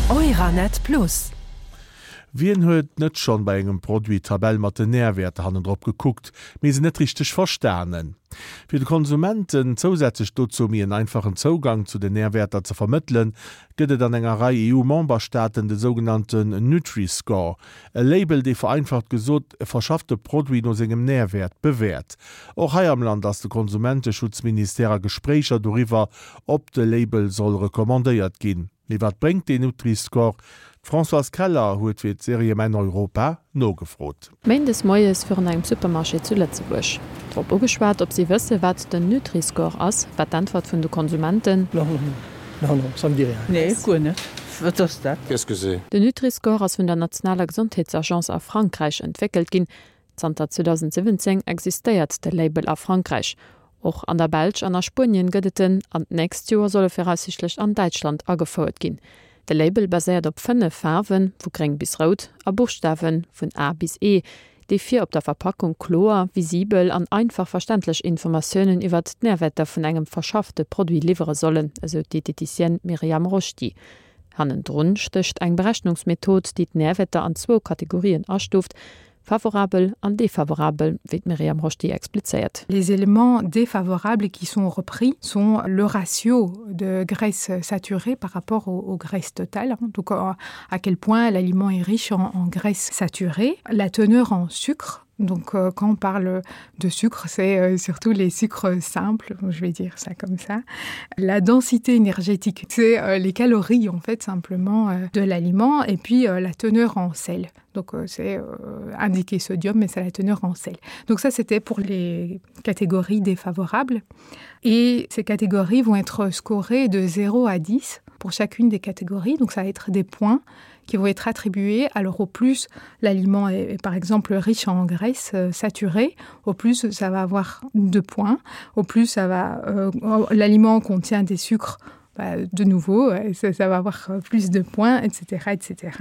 Euranet Plus. Wien huet net schonn bei engem Produit d'Tabell mat den Nährwäerter hannendrop gekuckt, mee se net richteg verstanen? Fir de Konsumenten zousätzlech dozou méi en einfachen Zougang zu den Nährwäerter ze vermëttelen, gëtt et an enger Rei EU-Memberstaaten de sougenannten Nutri-Score, e Label, dee vereinfacht gesot e verschaffte Produit no sengem Nährwäert bewäert. Och hei am Land ass de Konsumenteschutzministère a Gespréicher doriwwer, ob de Label soll recommandéiert ginn. Mee wat bréngt deen Nutri-Score? D'Françoise Keller huet fir d'Serie Mäin Europa nogefrot. Méindes moies virun engem Supermarché zu Lëtzebuerg. Drop ugeschwat, ob si wësse wat den Nutri-Score ass, war d'Äntwert vun de Konsumenten. Non, non, non, ça me dit rien. Nee, guer net. Wat ass dat? Qu'est-ce que c'est? Den Nutri-Score ass vun der nationaler Gesondheetsagence a Frankräich entwéckelt ginn. Zanter 2017 existéiert de Label a Frankräich. Och an der Belsch an a Spuenien gëtt et en, an d'nächst Joer soll e viraussiichtlech an Däitschland agefouert ginn. De Label baséiert op 5 Faarwen, vu gréng bis rout, a Buschtawen, vun A bis E, déi fir op der Verpackung kloer, visibel an einfach verständlech Informatiounen iwwert d'Närwäerter vun engem verschaffte Produit liwwere sollen, esou d'Dieteticienne Myriam Roschdy. Hannendrun stécht eng Berechnungsmethod, déi d'Närwäerter an zwou Kategorien astuuft, Favorabel an défavorabel, wéi d'Myriam Roschdy explizéiert. Les éléments défavorables qui sont repris sont le ratio de graisse saturée par rapport aux, aux graisses totales, donc à quel point l'aliment est riche en, en graisse saturée, la teneur en sucre, Donc euh, quand on parle de sucre, c'est euh, surtout les sucres simples, je vais dire ça comme ça. La densité énergétique, c'est euh, les calories en fait simplement euh, de l'aliment et puis euh, la teneur en sel. Donc euh, c'est euh, indiqué sodium, mais c'est la teneur en sel. Donc ça c'était pour les catégories défavorables. Et ces catégories vont être scorées de 0 à 10 pour chacune des catégories. Donc ça va être des points qui vont être attribués. Alors au plus l'aliment est, est par exemple riche en graisse euh, saturée, au plus ça va avoir deux points. Au plus ça va euh, l'aliment contient des sucres, bah, de nouveau euh, ça, ça va avoir euh, plus de points etc etc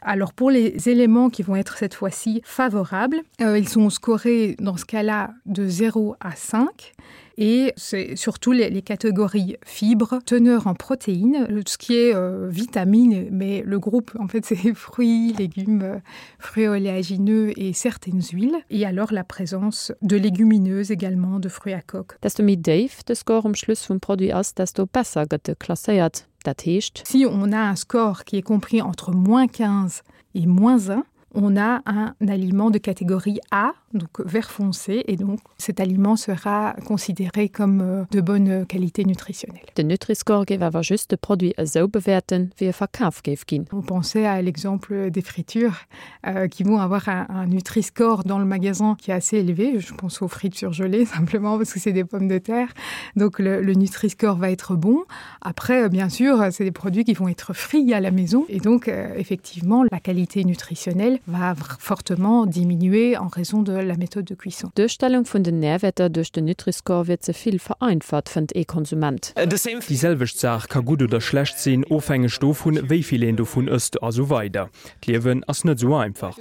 alors pour les éléments qui vont être cette fois-ci favorables euh, ils sont scorés dans ce cas là de 0 à 5 et c'est surtout les, les catégories fibres teneur en protéines ce qui est euh, vitamine mais le groupe en fait c'est fruits légumes euh, fruits oléagineux et certaines huiles et alors la présence de légumineuses également de fruits à coque Desto méi déif de Score um Schluss vum Produit ass, desto besser gëtt e klasséiert. Dat heescht. Si on a un score qui est compris entre moins 15 et moins 1, on a un aliment de catégorie A, donc vert foncé et donc cet aliment sera considéré comme euh, de bonne qualité nutritionnelle. Den Nutri-Score géif awer just de Produit esou bewäerten, wéi e verkaf géif ginn. On pensait à l'exemple des fritures euh, qui vont avoir un, un Nutri-Score dans le magasin qui est assez élevé. Je pense aux frites surgelées simplement parce que c'est des pommes de terre. Donc le, le Nutri-Score va être bon. Après, bien sûr, c'est des produits qui vont être frits à la maison et donc euh, effectivement la qualité nutritionnelle va fortement diminuer en raison de la méthode de cuisson. D'Duerstellung vun den Nährwäerter duerch den Nutri-Score wier ze vill vereinfacht, fënnt ee Konsument. Déi selwecht Saach ka gutt oder schlecht sinn, ofhängeg dovun, wéi vill een dovun ësst a sou weider. D'Liewen ass net sou einfach.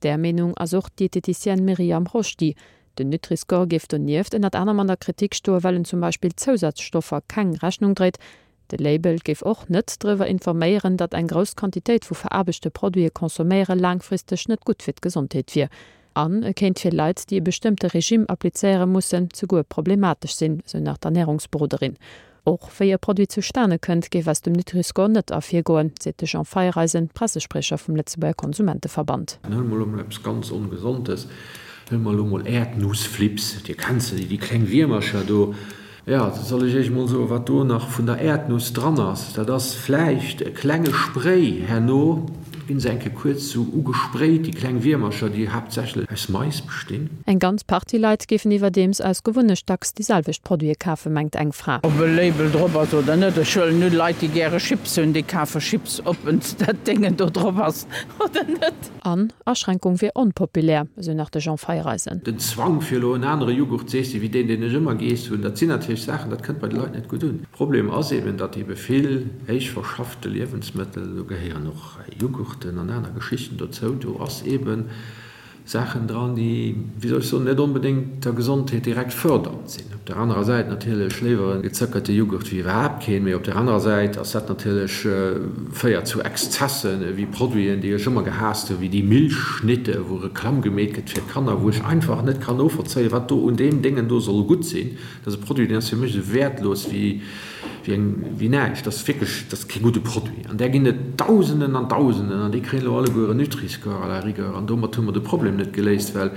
Där Meenung ass och d'Dieteticienne Myriam Roschdy. Den Nutri-Score géif donieft ënnert anerem an der Kritik stoen, well en zum Beispill Zousazstoffer keng Rechnung dréit. De Label géif och net driwwer informéieren, datt eng grouss Quantitéit vu veraarbechte Produite consomméiere laangfristeg net gutt fir d'Gesondheet wier. An e kéint fir Leit, déi e bestëmmte Regime applizéiere mussen, souguer problematesch sinn, sou nach d'Ernärungsberoderin. Och wéi e Produit zustane kënnt, géif aus dem Nutri-Score net ervirgoen, seet de Jean Feiereisen, Pressespriecher vum Lëtzebuerger Konsumenteverband. Huele mer elo mol eppes ganz Ongesondes, huele mer elo mol Äerdnussflips, Dir kennt se, déi kleng Wiermercher do. Jo, soll ech Iech mol soen, wat do nach vun der Äerdnuss dran ass? Dat ass vläicht e klenge Spray, herno ginn se eng Kéier kuerz sou ugesprayt, déi kleng Wiermercher, déi haaptsächlech aus Mais bestinn. Eng ganz Partie Leit géifen iwwerdeems aus Gewunnecht dacks déi selwecht Produite kafen, mengt eng Fra. Ob e Label drop ass oder net, ech huelen un, Leit déi gäre Chips hunn, déi kafe Chips, ob dat Déngen do drop ass oder net. An Aschränkung wier onpopulär, esou nach de Jean Feiereisen. Den Zwang fir elo en anere Jughurt z'eessen wéi deen, deen ech ëmmer geess hunn, dat sinn natierlech Saachen, dat kënnt bei de Leit net gutt un. Problem ass eben, datt ebe vill héich verschaffte Liewensmëttel, do gehéieren och Jughurten an aner Geschichten dozou, do ass eben. Saachen dran, déi, wéi soll ech soen, net onbedéngt der Gesondheet direkt fërdernd sinn. Op der anerer Säit natierlech léiwer e gezöckerte Jughurt wéi iwwerhaapt keen, mee op der anerer Säit ass dat natierlech, féiert zu Exzessen, ewéi Produiten, déi ech ëmmer gehaasst hunn, wéi déi Milchschnitte, wou Reklamm gemeet gëtt fir d'Kanner, wou ech einfach net kann novollzéien, wat do un deem Déngen do soll gutt sinn. Dat ass e Produit, deen ass fir mech esou wäertlos wéi, wéi eng, wéi näischt. Dat ass wierklech, dat ass kee gudde Produit. An där ginn et Dausenden an Dausenden an déi kréien elo alleguer en Nutri-Score à la rigueur. An domat hu mer de Problem net geléist, well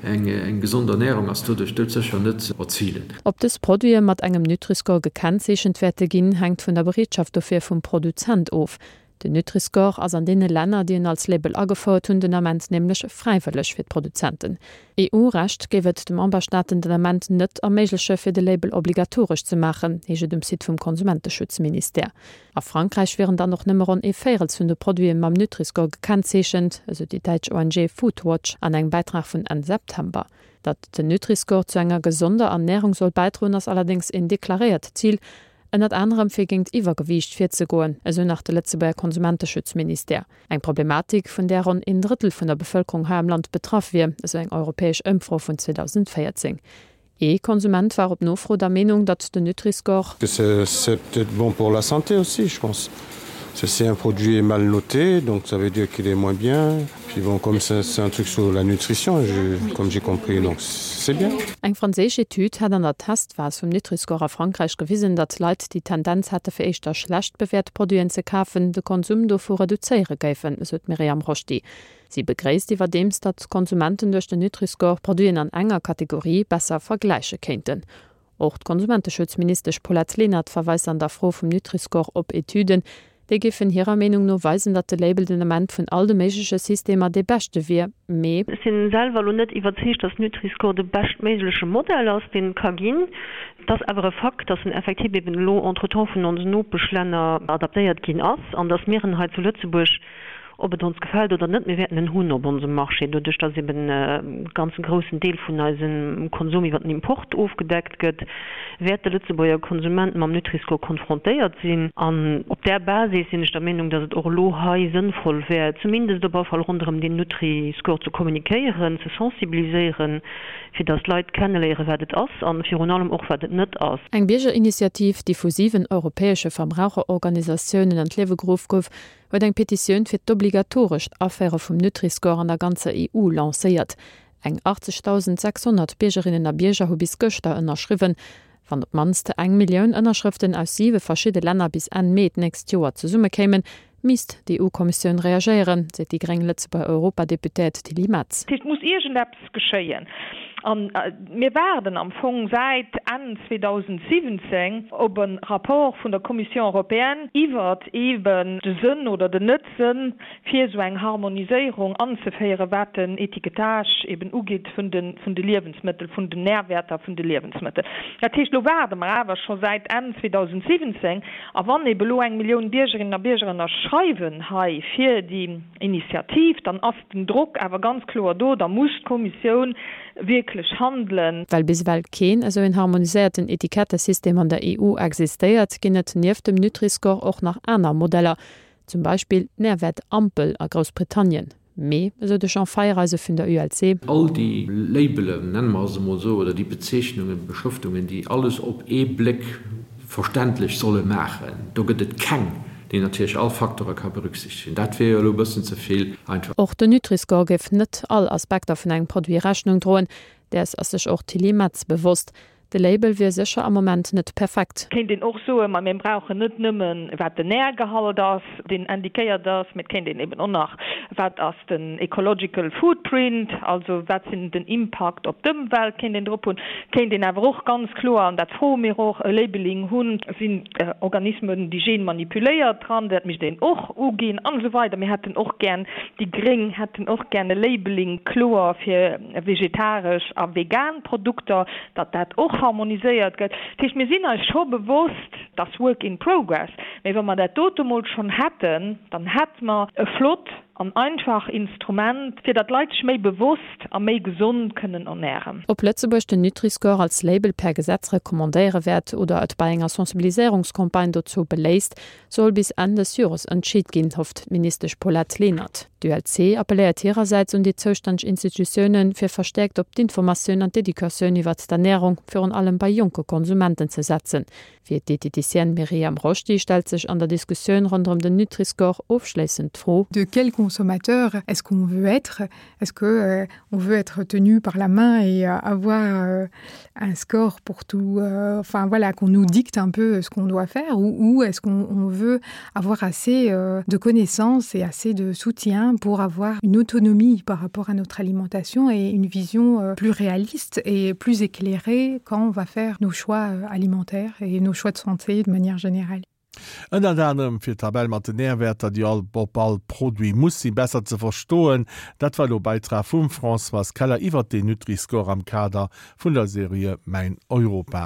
eng, eng gesond Ernährung ass doduerch doudsécher net ze erzilen. Ob dës Produite mat engem Nutri-Score gekennzeechent wäerte ginn, hänkt vun der Bereetschaft dofir vum Produzent of. Den Nutri-Score ass an deene Länner, déi en als Label agefouert hunn, den Ament nämlech fräiwëlleg fir d'Produzenten. EU-Recht géif et de Memberstaaten den Ament net erméigleche fir de Label obligatoresch ze maachen, heescht et um Site vum Konsumenteschutzministère. A Frankräich wieren dann och nëmme ronn ee Véirels vun de Produite mam Nutri-Score gekennzeechent, esou déi däitsch ONG Foodwatch an engem Bäitrag vun Enn September. Datt den Nutri-Score zu enger gesonder Ernärung soll bäidroen, ass allerdéngs een deklaréiert Zil, Ënnert anerem fir géingt Iwwergewiicht virzegoen, esou nach de Lëtzebuerger Konsumenteschutzministère. Eng Problematik, vun där ronn een Drëttel vun der Bevëlkerung hei am Land betraff wier, esou eng europäesch Ëmfro vun 2014. Ee Konsument war op Nofro der Meenung, datt den Nutri-Score. C'est peut-être bon pour la santé aussi, je pense. Si un produit est mal noté, donc ça veut dire qu'il est moins bien. Puis bon, comme c'est un truc sur la nutrition, je, comme j'ai compris, donc c'est bien. Eng franséisch Etüd hat an der Testphas vum Nutri-Score a Frankräich gewisen, datt Leit, déi d'Tendenz hate fir éischter schlecht bewäert Produiten ze kafen, de Konsum dovu reduzéiere géifen, esou d'Myriam Rochdi. Si begréisst iwwerdeems, datt d'Konsumenten duerch den Nutri-Score Produiten an enger Kategorie besser vergläiche kéinten. Och d'Konsumenteschutzministesch Paulette Lenert verweist an der Fro vum Nutri-Score op Etüden, déi géifen hirer Meenung no weisen, datt de Label den Ament vun all de méigleche Systemer dee beschte wier, mee. Ech sinn selwer elo net iwwerzeegt, datt Nutri-Score de beschtméigleche Modell ass, deen et ka ginn. Et ass awer e Fakt, datt en effektiv eben elo entretemps vun onsen Nopeschlänner adaptéiert ginn ass an datt mir en hei zu Lëtzebuerg, Ob et ons gefält oder net, mir wäerten en hunn op onsem Marché, doduerch dass eben e ganze groussen Deel vun eisem Konsum iwwer den Import ofgedeckt gëtt, wäert de Lëtzebuerger Konsument mam Nutri-Score konfrontéiert sinn. An op där Basis sinn ech der Meenung, dass et och elo hei sënnvoll wär, zumindest op alle Fall ronderëm deen Nutri-Score ze kommunikéieren, ze sensibiliséieren, fir dass d'Leit kenneléieren, wat et ass an virun allem och, wat et net ass. Eng Biergerinitiativ, déi vu 7 europäesche Verbraucherorganisatiounen an d'Liewe geruff gouf, huet eng Petitioun fir d'obligatorescht Aféiere vum Nutri-Score an der ganzer EU lancéiert. Eng 80.600 Biergerinnen a Bierger hu bis gëschter ënnerschriwwen. Wann op d'mannst eng Millioun Ënnerschrëften aus siwe verschidde Länner bis Enn Mee d'nächst Joer zesummekéimen, misst d'EU-Kommissioun reagéieren, seet déi gréng Lëtzebuerger Europadeputéiert Tilly Metz. Dat heescht, et muss iergendeppes geschéien. A mir waarden am Fong säit Enn 2017 op e Rapport vun der Commission européenne iwwert eeben de Sënn oder den Net-Sënn, fir esou eng Harmoniséierung anzeféieren, wat den Étiquetage eeben ugeet vun de Liewensmëttel, vun den Nährwäerter vun de Liewensmëttel. Dat heescht, elo waarde mer awer scho säit Enn 2017. A wann eeben elo eng Millioun Biergerinnen a Bierger ënnerschreiwen hei fir déi Initiativ, dann ass den Drock awer ganz kloer do, da muss d'Kommissioun wierklech handelen. Well bis ewell keen esou een harmoniséierten Etikettesystem an der EU existéiert, ginn et nieft dem Nutri-Score och nach aner Modeller, zum Beispill d'Närwäert-Ampel a Groussbritannien. Mee, esou de Jean Feiereise vun der ULC. All déi Labelen, nenne mer se emol esou, oder déi Bezeechnungen, Beschrëftungen, déi alles op ee Bléck verständlech solle maachen, do gëtt et keng, déi natierlech all Facteure ka berücksichtegen. Dat wier jo elo e bëssen ze vill einfach. Och den Nutri-Score géif net all Aspekter vun engem Produit Rechnung droen. Däers ass sech och d'Tilly Metz bewosst. De Label wier sécher am Moment net perfekt. Kéint een och soen, ma mir brauchen net nëmmen, wat den Nährgehalt ass, deen indiquéiert ass, mee et kéint een eben och nach, wat ass den ecological footprint, also wat sinn den Impakt op d'Ëmwelt, kéint een drop hunn. Kéint een awer och ganz kloer, an dat froe mir och, e Labeling hunn, sinn Organismen, déi genmanipuléiert dran, dat misst een och uginn an esou weider. Mir hätten och gär, déi gréng hätten och gär e Labeling kloer fir vegetaresch a vegan Produkter, datt dat och harmoniséiert gëtt. Dat heescht, mir sinn eis scho bewosst, dat ass work in progress, mä wa mer dat dote mol schonn hätten, dann hätte mer e flott. an einfach Instrument, fir datt d'Leit sech méi bewosst a méi gesond kënnen ernären. Ob Lëtzebuerg den Nutri-Score als Label per Gesetz recommandéiere wäert oder et bei enger Sensibiliséierungscampagne dozou beléisst, soll bis Enn des Jores entscheet ginn, hofft d'Ministesch Paulette Lenert. D'ULC appelléiert hirersäits un déi zoustänneg Institutiounen, fir verstäerkt op d'Informatioun an d'Educatioun iwwert d'Ernärung, virun allem bei jonke Konsumenten, ze setzen. Fir d'Dieteticienne Myriam Roschdy stellt sech an der Diskussioun ronderëm den Nutri-Score ofschléissend d'Fro. De quel consommateur est-ce qu'on veut être? Est-ce que euh, on veut être tenu par la main et euh, avoir euh, un score pour tout euh, enfin voilà qu'on nous dicte un peu ce qu'on doit faire ou, ou est-ce qu'on veut avoir assez euh, de connaissances et assez de soutien pour avoir une autonomie par rapport à notre alimentation et une vision euh, plus réaliste et plus éclairée quand on va faire nos choix euh, alimentaires et nos choix de santé de manière générale. Ënnert anerem fir d'Tabell mat den Närwäerter, déi all op all Produit muss sinn, besser ze verstoen. Dat war elo Bäitrag vum Françoise Keller iwwert den Nutri-Score am Kader vun der Serie Mäin Europa.